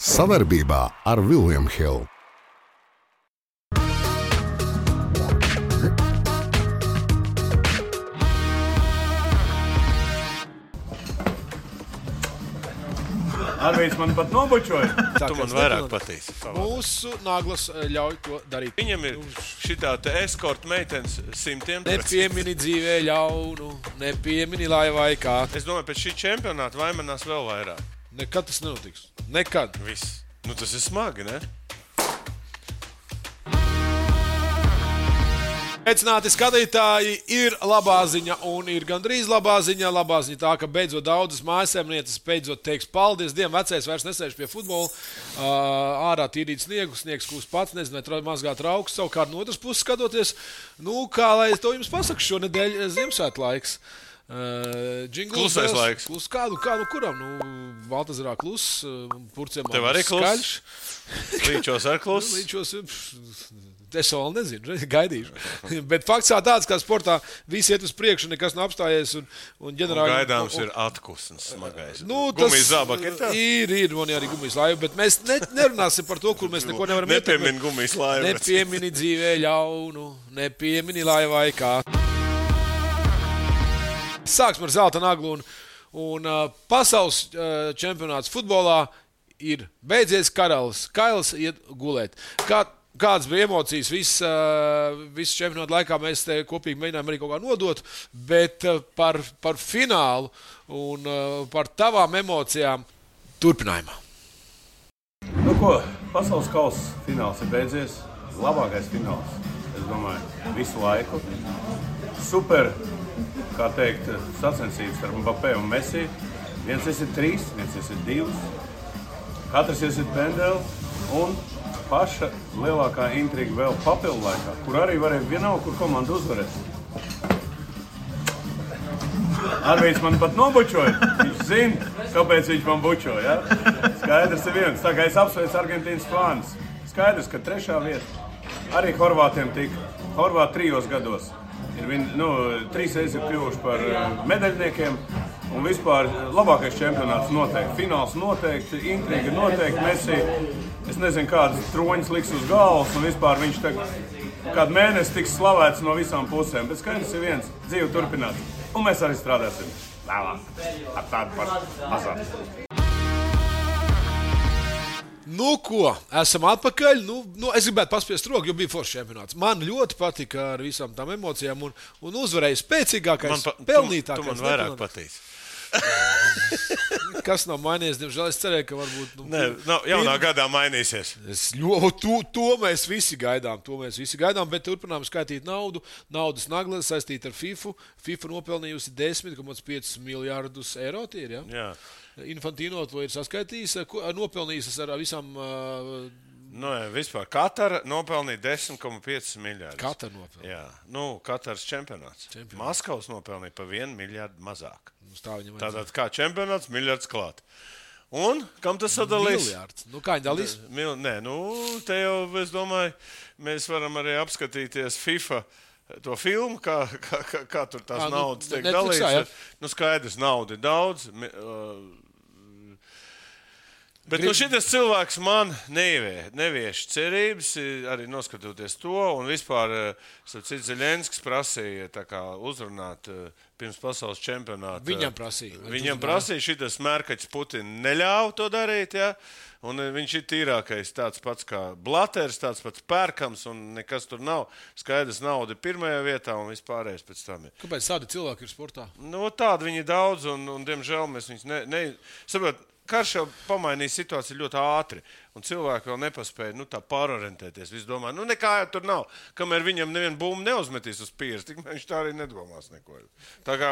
Savarbībā ar William Hill. Arvīds man pat nobučoja. Tu man vairāk patīk. Mūsu naglas ļauj to darīt. Viņam ir šitā te eskorta meitenes 100%. Nepiemini dzīvē ļaunu, nepiemini laivai kā. Es domāju, pēc šī čempionāta vaimanās vēl vairāk. Nekad tas nenotiks. Nekad. Viss. Nu tas ir smagi, ne? Sveicināti skatītāji, ir labā ziņa un ir gandrīz labā ziņa. Labā ziņa tā, ka beidzot daudzas mājasēmnieces beidzot teiks paldies Dievam, vecais vairs nesēž pie futbola. Ārā tīrīt sniegu, sniegs kūst pats, nezinu, vai mazgāt raukus. Savukārt no otras puses skatoties, kā lai to jums pasaku, šonedēļ Ziemassvētku laiks. Klusais laiks. Kuram? Baltazarā kluss, Purciem Tev arī skaļš. Līčos ar kluss. Līčos, es vēl nezinu, gaidīšu. Bet fakts tāds, ka sportā visi iet uz priekšu, nekas nav apstājies. Un gaidāms ir atkusns smagais. Gumijas zābaki ir tā? Ir, man arī gumijas laiva, bet mēs nerunāsim par to, kur mēs neko nevaram ietekmēt. Nepiemini gumijas laivu. Nepiemini dzīvē ļaunu, nepiemini laivai kā. Sāksim ar zelta naglu un pasaules čempionāts futbolā ir beidzies, Kailis iet gulēt. Kādas bija emocijas visu čempionātu laikā, mēs te kopīgi mēģinājām arī kaut kā nodot, bet par finālu un par tavām emocijām turpinājumā. Nu ko, pasaules kausa fināls ir beidzies. Labākais fināls, es domāju, visu laiku. Super, kā teikt, sacensības ar Mbappé un Messi. Viens iesit 3, viens iesit 2. Katrs iesit pendeli un paša lielākā intriga vēl papildu laikā, kur arī varēja vienalga, kur komanda uzvarēs. Arvīds man pat nobučoja. Viņš zina, kāpēc viņš man bučoja. Ja? Skaidrs ir viens. Tā kā es apsveicu Argentīnas fānus. Skaidrs, ka 3. vieta arī horvātiem tika. Horvāti 3 gados. Viņi 3 reizes ir kļuvuši par medaļniekiem. Un vispār labākais čempionāts noteikti. Fināls noteikti, intriga noteikti. Messi, es nezinu, kādas troņas liks uz galvas. Un vispār viņš kādu mēnesi tiks slavēts no visām pusēm. Bet skaidrs ir viens. Dzīve turpinās. Un mēs arī strādāsim vēlāk. Ar tādu pašu mazāk. Nu ko, esam atpakaļ. Es gribētu paspiest roku, jo bija foršs čempionāts. Man ļoti patika ar visām tām emocijām un uzvarēja spēcīgākais, pelnītākais. Tu man vairāk patīk. Kas nav mainījies, diemžēl es cerēju, ka varbūt... Jaunā gadā mainīsies. To mēs visi gaidām, bet turpinām skaitīt naudu. Naudas nagla saistīta ar FIFA. FIFA nopelnījusi 10,5 miljārdus eiro, tie ir, ja? Jā. Infantino to ir saskaitījis, nopelnījis ar visām... Vispār Katara nopelnīja 10,5 miljārdus. Katara nopelnīja? Jā. Kataras čempionāts. Maskavas nopelnīja pa 1 miljārdu mazāk. Tātad kā čempionāts, miljards klāt. Un kam tas sadalīs? Miljards. Kā viņi dalīs? Te jau, es domāju, mēs varam arī apskatīties FIFA to filmu, kā tur tās naudas tiek dalīts. Skaidrs, nauda ir daudz. Bet šitas cilvēks man nevieš cerības, arī noskatoties to, un vispār Zelenskis prasīja uzrunāt pirms pasaules čempionāta. Viņam prasīja, šitas Mērkaķis Putina neļāva to darīt, ja? Un viņš ir tīrākais, tāds pats kā Blaters, tāds pats Pērkams, un nekas tur nav. Skaidrs, nauda ir pirmajā vietā, un vispārējais pēc tam ir. Kāpēc tādi cilvēki ir sportā? Tādi viņi ir daudz, un diemžēl mēs viņus saprot, karš jau pamainīja situāciju ļoti ātri, un cilvēki vēl nepaspēja tā pārorientēties. Visi domā, nekā jau tur nav. Kamēr viņam nevienu bumbu neuzmetīs uz pieres, tik viņš tā arī nedomās neko. Tā kā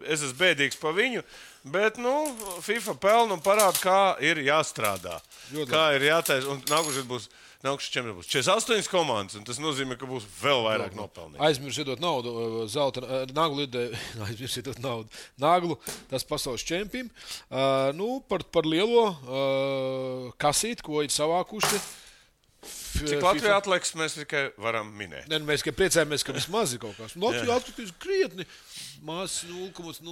es esmu bēdīgs pa viņu, bet, FIFA pelna un parāda, kā ir jāstrādā. Kā ir jātais, un nākušais čempionāts būs 48 komandas, un tas nozīmē, ka būs vēl vairāk nopelnīt. Aizmirsiet naudu, zelta naglu, aizmirsiet naudu. Naglu, tas pasaules čempim. Par lielo kasīti, ko ir savākuši. Cik Latvijā atliks, mēs tikai varam minēt. Mēs tikai priecājamies, ka vismaz ir kaut kas. Latvijā atkritīs krietni. Maz 0,0001%.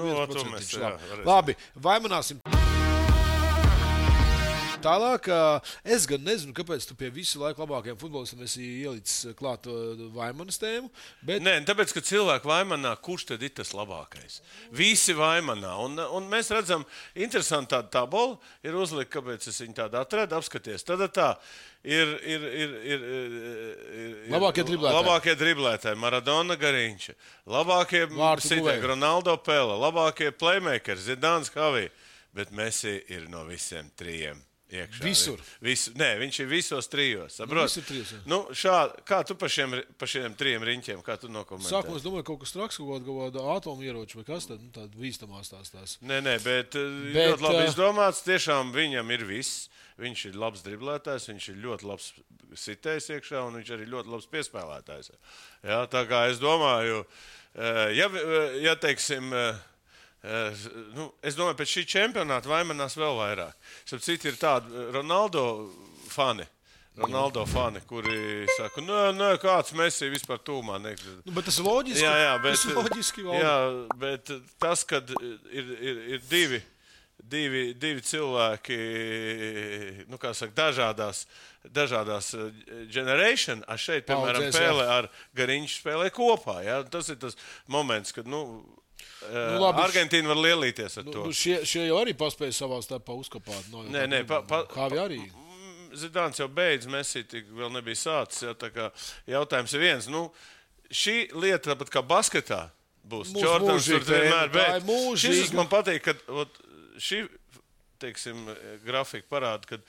0,0001%. Labi, vaimanāsim. tālāk. Es gan nezinu, kāpēc tu pie visu laiku labākajiem futbolistiem esi ielicis klāt Vaimanas tēmu. Bet... Nē, tāpēc, ka cilvēki Vaimanā, kurš tad ir tas labākais? Visi Vaimanā. Un mēs redzam, interesanti tāda tabola ir uzlikta, kāpēc es viņu tādu atradu, apskaties. Tad tā ir labākie driblētāji, Maradona, Gariņš, labākie sitēji, Ronaldo, Pele, labākie playmakers, Zidāns, Havī, bet Messi ir no visiem trijiem. Iekšā. Visur. Viņš ir visos trijos. Visur trijos, jā. Nu, kā tu pa šiem trijiem riņķiem, kā tu nokomentē? Sākumā es domāju, kaut kas traks, kaut kāda atomu ieroču vai kas tad, tāda bīstamās tās. Nē, bet ļoti labi izdomāts. Tiešām viņam ir viss. Viņš ir labs driblētājs, viņš ir ļoti labs sitējs iekšā un viņš arī ļoti labs piespēlētājs. Jā, tā kā es domāju, ja teiksim... es domāju, pēc šī čempionāta Vaimanās vēl vairāk. Citu ir tādi Ronaldo fani, kuri saka, nē, kāds Messi vispār tūmā. Bet tas ir loģiski. Jā, bet tas, kad ir divi cilvēki, kā saka, dažādās generation, šeit, piemēram, Pele ar Gariņš spēlē kopā. Jā? Tas ir tas moments, kad, labi, Argentīna var lielīties ar to. Šie jau arī paspēja savā starpā uzkapāt. Nē, Kāvi arī. Zidāns jau beidz, Messi tik vēl nebija sācis. Tā kā jautājums ir viens. Šī lieta, tāpat kā basketā, būs Jordans tur vienmēr. Bet šis man patīk, ka šī, teiksim, grafika parāda,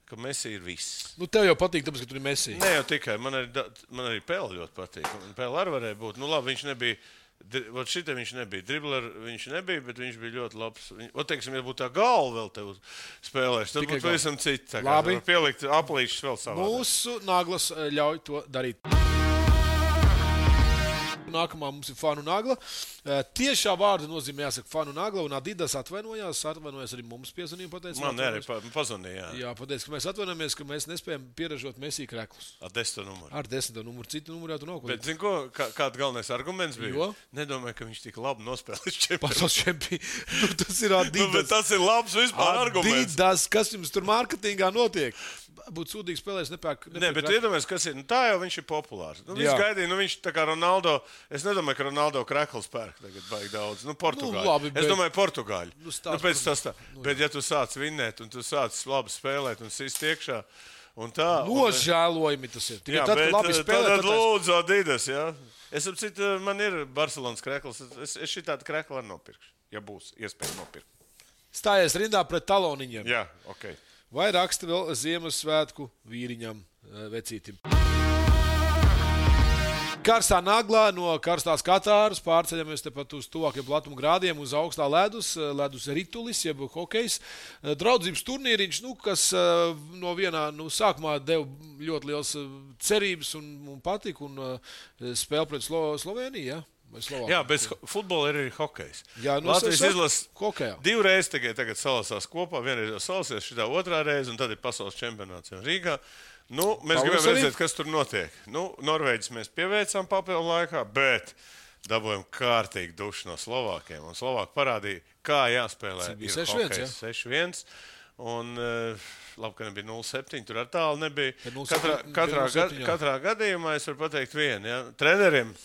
ka Messi ir viss. Tev jau patīk, tāpēc, ka tur ir Messi. Ne jau tikai, man arī Pele ļoti patīk. Pele arī varēja būt. Labi, viņš nebija. Šitam viņš nebija dribler, viņš nebija, bet viņš bija ļoti labs. Teiksim, ja būtu tā galva vēl tev spēlēs, tad būtu pavisam citi. Labi. Pielikt aplīšus vēl savā. Mūsu naglas ļauj to darīt. Nākamā mums ir Fanu Nagla. Tiešā vārda nozīmē jāsaka Fanu Nagla, un Adidas atvainojās arī mums piezvanīja. Man arī pazvanīja. Jā, pateic, ka mēs atvainojamies, ka mēs nespējam pieražot Messi kreklus. Ar 10. numuru. Ar 10. numuru, citu numuru jau tu nav. Bet, zini ko, kāda galvenais arguments bija? Jo? Nedomāju, ka viņš tik labi nospēlēs čempionu. Pasaules čempionu. Tas ir Adidas. Bet tas ir labs vispār arguments. Adidas, kas jums tur mārketingā notiek? Būtu sūdīgi spēlēs, nepērk. Nē, bet iedomājies, kas ir. Tā jau viņš ir populārs. Viņš gaidīja, viņš tā kā Ronaldo. Es nedomāju, ka Ronaldo krekls pērk tagad baigi daudz. Portugāļi. Labi, es domāju, Portugāļi. Pēc tas tā. Bet ja tu sāc vinnēt un tu sāc labi spēlēt un sist iekšā un tā. Nožēlojami tas ir. Jā, tad, bet tad lūdzu Adidas, jā. Es apcitu, man ir Barcelonas krekls. Es šī tādu kreklu arī nopirkšu, ja būs iespēja nopirkt. Stājies rindā pret taloniņiem. Jā, ok. Vai raksta vēl Ziemassvētku vīriņam vecītim. Karstā naglā no karstās Katāras pārceļamies tepat uz tuvākiem platuma grādiem uz augstā ledus ritulis, jeb hokejs. Draudzības turnīriņš, kas no vienā sākumā deva ļoti liels cerības un patika un spēle pret Sloveniju, ja? Jā, bez futbola ir arī hokejs. Jā, Latvijas izlases hokejā. 2 reizes tagad salasās kopā, vienreiz jau salasies, šitā 2. reize, un tad ir pasaules čempionāts Rīgā. Mēs gribam redzēt, kas tur notiek. Norvēģis mēs pieveicām papildu laikā, bet dabūjām kārtīgi dušu no Slovākiem. Un Slovāki parādīja, kā jāspēlē. Ir 6-1, 6-1. Un labi, ka nebija 0-7, tur ar tālu nebija. Katrā gadījumā es varu pateikt vienu. Ja? Treneriem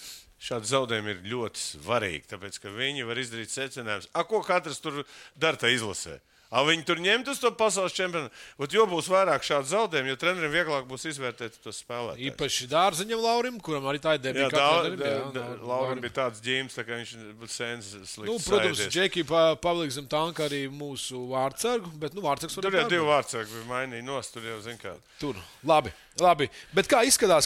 šādi zaudējumi ir ļoti svarīgi, tāpēc, ka viņi var izdarīt secinājumus. Ko katrs tur dara tā izlasē? Viņi tur ņemt uz to pasaules čempionu. Jo būs vairāk šādu zaudējumu, jo treneriem vieglāk būs izvērtēt tos spēlētājus. Īpaši Dārziņam Laurim, kuram arī tā ir debija. Laurim bija tāds ģīms, tā kā viņš būtu sens slikts. Protams, Džeki paliks zem tanka arī mūsu vārdsargu, bet vārdsargs var tur jau 2 vārdsargi bija mainīja nost, tur jau zin kā. Tur, labi. Bet kā izskatās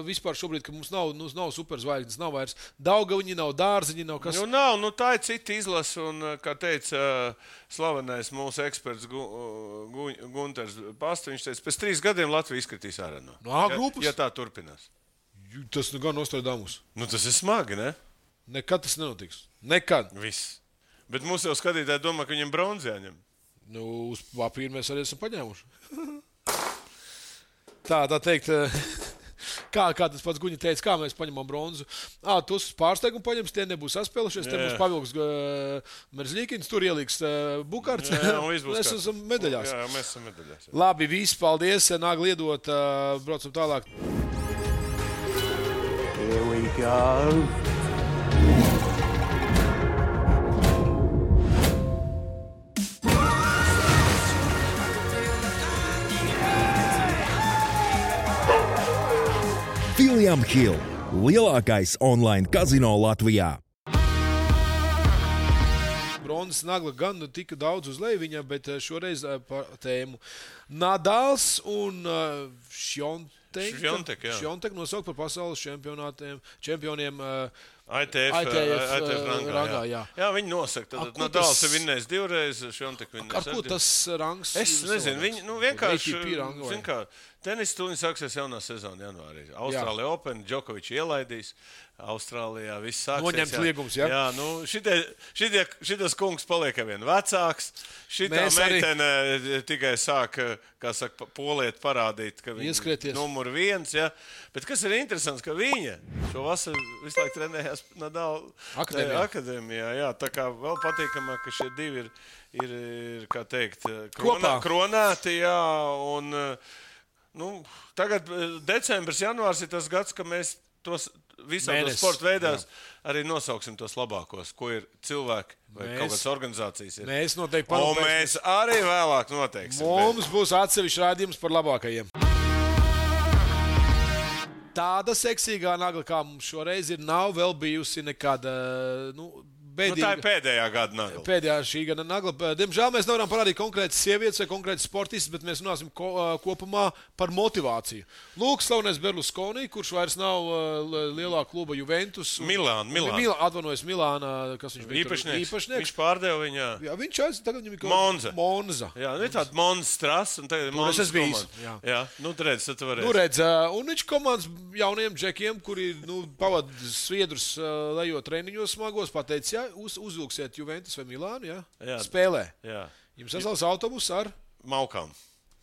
vispār šobrīd, ka mums nav superzvaigznes, nav vairs Daugaviņi, nav Dārziņi, nav kas? Nav, tā ir cita izlase, un, kā teica slavenais mūsu eksperts Gunters Pasta, viņš teica, pēc 3 gadiem Latvija izskatīs ārā no grupas? Ja tā turpinās. Tas gan Nostradamus. Tas ir smagi, ne? Nekad tas nenotiks. Nekad. Viss. Bet mūsu jau skatītāji domā, ka viņam bronzi jāņem. Uz papīra mēs arī esam paņēmuši. Tā teikt, Kā tas pats Guņa teica, kā mēs paņemam bronzu. Tu uz pārsteigumu paņems, tie nebūs saspēlušies, te būs pavilks Merzļīkins, tur ieliks Bukārts. Mēs esam medaļās. Jā, mēs esam medaļās. Jā. Labi, viss, paldies. Nāk liedot, braucam tālāk. Here we go. William Hill, lielākais online kazino Latvijā. Bronzas nagla gan tika daudz uz leju viņam, bet šoreiz par tēmu Nadals un Šjontek nosaukt par pasaules čempioniem ITF rangā. Jā, viņi nosaka. Tad Nadals ir vinnējis 2 reizes, Šjontek vinnējis. Ar ko tas rangs? Es nezinu, viņi vienkārši, zin kā, tenis tūlīt sāksies jaunā sezona janvārī. Austrālija Open, Džokovičs ielaidīs. Austrālijā viss sāksies. Noņemts liegums, jā? Jā, šitas kungs paliek vien vecāks. Šitā meitene tikai sāk, kā saka, poliet parādīt, ka viņa numur 1, jā. Bet kas ir interesants, ka viņa šo vasaru visu laiku trenējās Nadal akadēmijā, jā. Tā kā vēl patīkamāk, ka šie divi ir kā teikt, kronēti, jā, un, tagad decembris, janvārs ir tas gads, ka mēs tos visādos sporta veidās arī nosauksim tos labākos, ko ir cilvēki vai kaut kādas organizācijas ir. Mēs noteikti un mēs arī vēlāk noteiksim. Mums būs atsevišķi rādījums par labākajiem. Tāda seksīgā nagla, kā mums šoreiz ir, nav vēl bijusi nekāda, bēdīga. Tā ir pēdējā gada nagla. Pēdējā šī gada nagla. Diemžēl mēs nevaram parādīt konkrētas sievietes vai konkrētas sportistas, bet mēs runāsim kopumā par motivāciju. Lūk, slavenais Berlusconi, kurš vairs nav lielā kluba Juventus. Atvainojas Milānā, kas viņš bija īpašnieks. Viņš pārdeva viņā. Jā, viņš tagad viņam ir Monza. Jā, ir tāda Monza Stras, un tagad ir Monza komanda. Jā, redz, tad tu varēsi. Un viņš komandas jauniem džekiem, kuri pavad sviedrus lejot treniņos smagos, pateica, uzvilksiet Juventus vai Milānu, jā? Spēlē. Jā. Jums sasauc autobus ar? Maukām.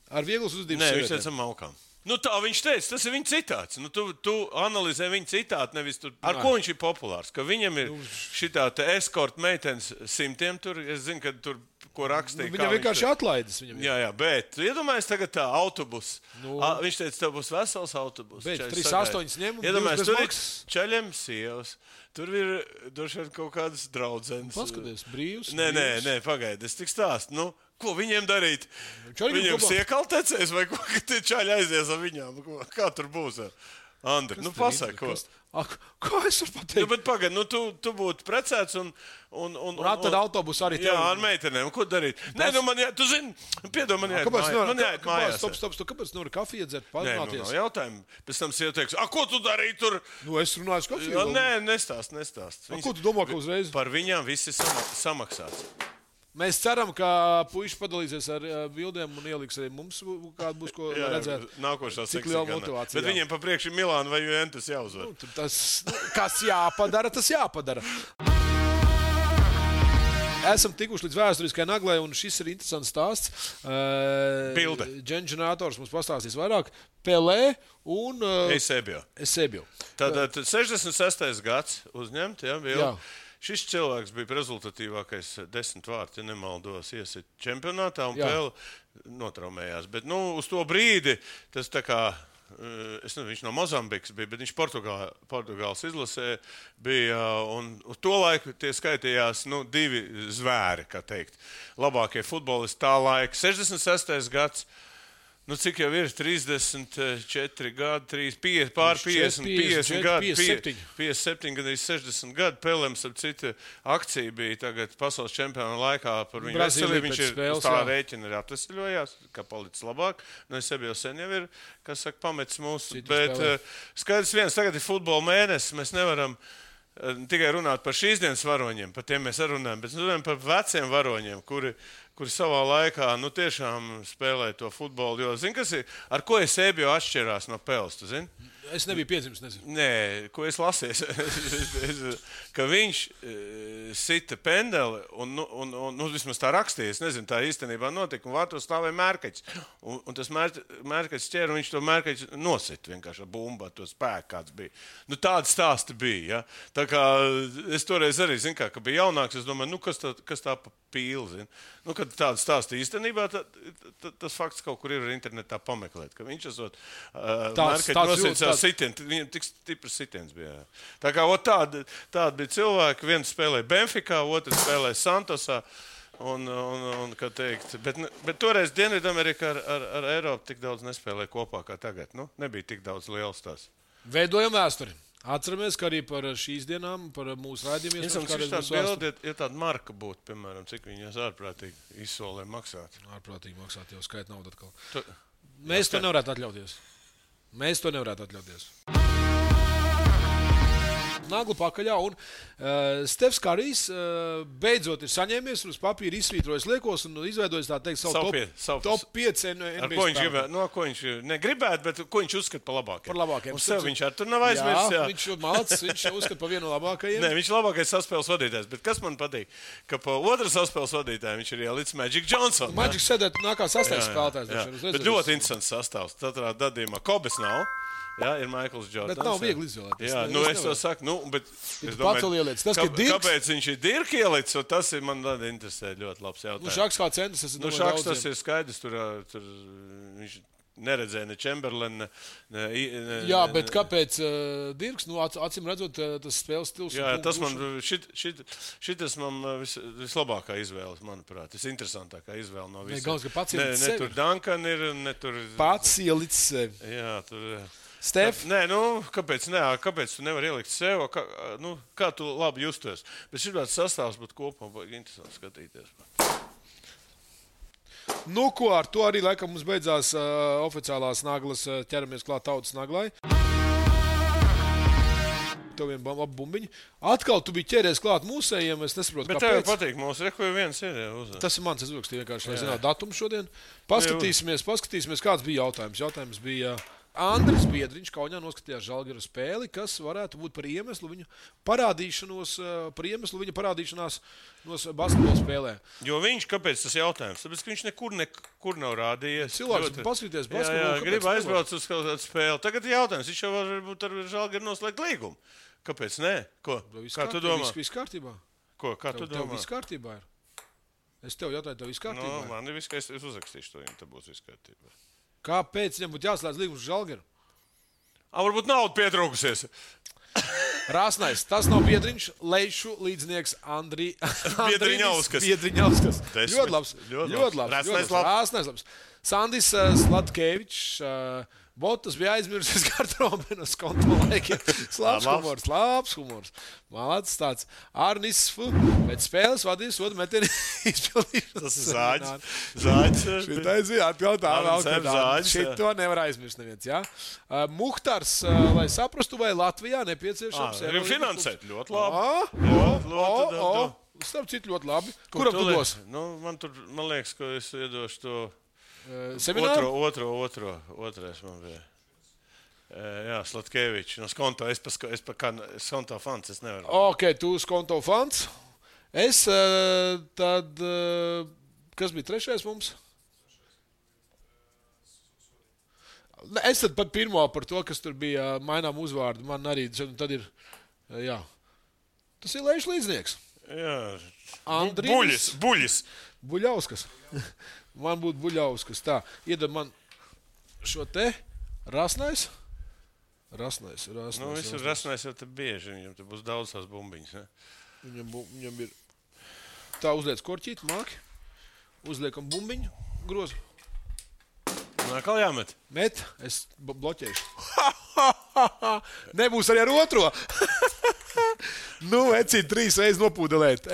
Ar vieglas uzdības sievietēm? Nē, viņš teica maukām. Tā viņš teica, tas ir viņa citāts. Tu analizē viņa citātu, nevis tur. Ar ko viņš ir populārs? Ka viņam ir šitā te eskorta meitenes 100 tur. Es zinu, ka tur, ko rakstīja. Viņam vienkārši atlaides. Jā, bet iedomājies tagad tā autobus. Viņš teica, tev būs vesels autobus. Bet 3-8 ņem. Iedomājies, tur ir čaļiem sievas. Tur ir droši vien kaut kādas draudzenes. Paskaties, brīvs. Nē, pagaidi, es tik stāstu. Ko viņiem darīt? Viņiem siekaltecēs vai ko, ka tie čaļi aizies ar viņām? Kā tur būs? Andri, pasaka, ko? Kā es varu pateikt? Bet pagaidi, tu būtu precēts un tad autobus arī tev. Jā, ar meitenēm. Ko darīt? Nē, tu zini, piedod, man jāiet mājās. Stop, kāpēc nevar kafiju dzert, parunāties? Nē, jautājumu. Pēc tam sieva teiks, ko tu darīji tur? Es runāju kafiju. Nē, nestāst. Ko tu domā, ka uzreiz? Par viņām viss ir samaksāts. Mēs ceram, ka puiši padalīsies ar bildēm un ieliks arī mums, kāda būs ko redzēt. Nākošā cik liela motivācija. Bet viņiem pa priekšu Milāna vai Juventus jāuzvar. Kas jāpadara, tas jāpadara. Esam tikuši līdz vēsturiskai naglai, un šis ir interesants stāsts. Bilde. Ģenerātors mums pastāstīs vairāk. Pelē un Eusebio. Tātad 66. gads uzņemt, bija. Šis cilvēks bija rezultatīvākais 10 vārti, ja nemaldos, iesit čempionātā un Pele notraumējās. Bet uz to brīdi tas tā kā, es nezinu, viņš no Mozambikas bija, bet viņš Portugāles izlasē bija, un uz to laiku tie skaitījās 2 zvēri, kā teikt. Labākie futbolisti tā laika. 66. gads. Cik jau ir 34 gadi, 50 gadi, 57 gadi, 60 gadi. Pelēms, ap citu, akcija bija tagad pasaules čempionu laikā par viņu veselību. Viņš ir uz tā rēķina arī atvesļojās, kā palicis labāk. Es jau sen jau ir, kas saka, pametis mūsu. Bet skaidrs viens, tagad ir futbola mēnesis, mēs nevaram tikai runāt par šīs dienas varoņiem, par tiem mēs runājam, bet runājam par veciem varoņiem, kuri savā laikā tiešām spēlē to futbolu. Jo, zini, kas ir, ar ko Eusebio atšķirās no Peles, tu zini? Es nebiju piedzimis, nezinu. Nē, ko es lasīju, ka viņš sita pendeli un vismaz tā rakstīja. Es nezinu, tā īstenībā notika, un vārtos stāvēja mērkaķis. Un tas mērkaķis ķēra, un viņš to mērkaķi nosita vienkārši ar bumbu, ar to spēku, kāds bija. Nu, tādi stāsti bija, ja. Tā kā es toreiz arī, zinu, ka bija jaunāks, es domāju, kas tā pa pīli, zinu. Nu, kad tādi stāsti īstenībā, tas fakts kaut kur ir internetā pameklēt, ka viņš esot mērkaķi nosita sitienu, viņam tik stiprs sitiens bija. Tā kā tādi bija cilvēki, viens spēlēja Benficā, otrs spēlēja Santosā, un kā teikt, bet toreiz Dienvidamerika ar Eiropu tik daudz nespēlēja kopā kā tagad, nu, nebija tik daudz liels tās. Veidojam vēsturi. Atceramies, ka arī par šīs dienām, par mūsu raidījumiem. Es domāju, ka tāda bilde, ja tāda marka būtu, piemēram, cik viņas ārprātīgi izsolē maksāt. Ārprātīgi maksāt, jau skait naudu atkal. Mēs to nevarētu atļauties. Nagla pakaļā, un Stefs Karijs beidzot ir saņēmies un uz papīra izsvītrojis liekos un izveidojis, tā teikt, savu top 5 NBA spēlētāju. Ko viņš negribētu, bet ko viņš uzskata par labākajiem? Par labākajiem. Un sev viņš ar tur nav aizmirsis. Jā, viņš malacis, viņš uzskata par vienu no labākajiem. Nē, viņš ir labākais saspēles vadītājs, bet kas man patīk, ka pa otru saspēles vadītāju viņš ir ielicis Magic Johnson. Magic sēdēt nākā sastāvs spēlētājs. Bet ļoti interesants sastāvs. Tatrā gadījumā Kobes nav. Jā, ir Maikls Jordans. Bet nav viegli izvēlēt. Jā, es to saku, bet es domāju, kāpēc viņš ir Dirka ielicis, un tas ir man interesē ļoti labs jautājums. Nu, Šaks kā centrs, Šaks tas ir skaidrs, tur viņš neredzēja ne Chamberlain. Jā, bet kāpēc Dirks? Nu, acīm redzot, tas spēles stils. Jā, tas man, šitas man vislabākā izvēle, manuprāt. Tas interesantākā izvēle no visiem. Ne tur Duncan ir, ne tur... Pats ielicis sevi. Jā, tur... Stef? Nē, kāpēc tu nevari ielikt sev? Kā tu labi justies? Bet šī tāds sastāvs būtu kopumā baigi interesanti skatīties. Nu, ko ar to arī laikam mums beidzās oficiālās naglas, ķeramies klāt tautas naglai. Tev vien labi bumbiņi. Atkal tu biji ķēries klāt mūsējiem, es nesaprotu, kāpēc. Bet tev patīk mūsu, reku viens ir. Tas ir mans, es uzrakstīju vienkārši, lai zinātu datumu šodien. Paskatīsimies, kāds bija jautājums. Jautājums bija... Andris Biedriņš Kaunijā noskatījās Žalgiru spēli, kas varētu būt par iemeslu viņa parādīšanās basketbola spēlē. Jo viņš, kāpēc tas jautājums? Tāpēc, ka viņš nekur nav rādījies. Cilvēks paskatīties basketbolu. Jā, grib aizbraukt uz kādu spēli. Tagad ir jautājums, viņš jau varbūt ar Žalgiru noslēgt līgumu. Kāpēc nē? Ko? Kā tu domā? Viss kārtībā. Ko? Kā tu domā? Tev viss kārtībā ir. Es tev jautāju, tev viss kārtībā ir. Man ir viss, ka es uzrakstīšu to, ja te būs viss kārtībā. Kāpēc viņam būtu jāslēdz līgums uz Žalgiru? Varbūt nauda pietrūkusies. Rāsnais, tas nav Biedriņš, Leišu līdznieks Biedriņauskas. Ļoti labs. Rāsnais labs. Sandis Slatkevičs, Botas bija aizmirsis garderobenas kontrolēkiem. Labs humors. Malācis tāds. Arnis pēc spēles vadīs sodu metienu izpildīšanas. Tas ir Zāģis. Šitais bija atjautā. Šito nevar aizmirst neviens, jā. Muhtars, lai saprastu, vai Latvijā nepieciešams. Finansēt ļoti labi. Starp citu ļoti labi. Kuram tu dos? Man liekas, ka es iedošu to... Semināru? Otrais man bija. Jā, Slatkevičs. No Skonto. Es pa Skonto fans. Es nevaru. Ok, tu Skonto fans. Es tad... Kas bija trešais mums? Es tad pat pirmo par to, kas tur bija mainām uzvārdu. Man arī tad ir... Jā. Tas ir Leišu līdznieks. Jā. Andrīvis. Buļis. Buļauskas. Man būtu Buļauskas. Tā, iedod man šo te Rasnais. Rasnais. Viss ir Rasnais jau te bieži. Viņam te būs daudz tās bumbiņas. Ne? Viņam ir... Tā uzliec korķīt, māki. Uzliekam bumbiņu, grozu. Nākal jāmet. Met, es bloķēšu. Nebūs arī ar otro. Ecīt 3 reizes nopūdelēt.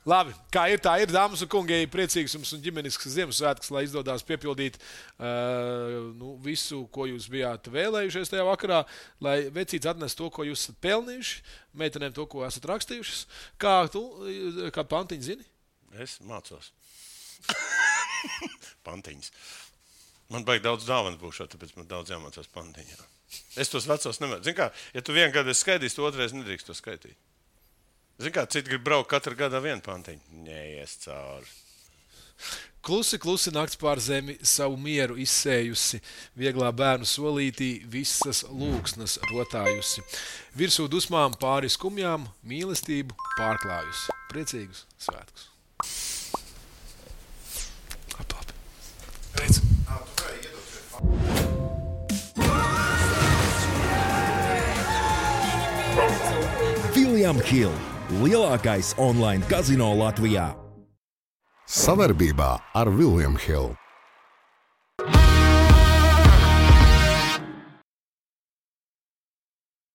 Labi, kā ir, tā ir, dāmas un kungi, priecīgs jums un ģimenisks Ziemassvētks, lai izdodās piepildīt visu, ko jūs bijāt vēlējušies tajā vakarā, lai vecīts atnes to, ko jūs esat pelnījuši, meitenēm to, ko esat rakstījušas. Kā pantiņu zini? Es mācos. Pantiņas. Man baigi daudz dāvanu būšot, tāpēc man daudz jāmācās pantiņā. Es tos vecos nemēr. Zini kā, ja tu vienu gadu esi skaidījis, tu otrais nedrīkst to skaitīt. Zini kā, citi grib braukt katru gadā vienu pantiņu. Neies cauri. Klusi, klusi nakts pār zemi savu mieru izsējusi, vieglā bērnu solītī visas lūksnas rotājusi. Virsū dusmām pāri skumjām mīlestību pārklājusi. Priecīgus svētkus. Labi. Pēc. William Hill – lielākais online kazino Latvijā. Savarbībā ar William Hill.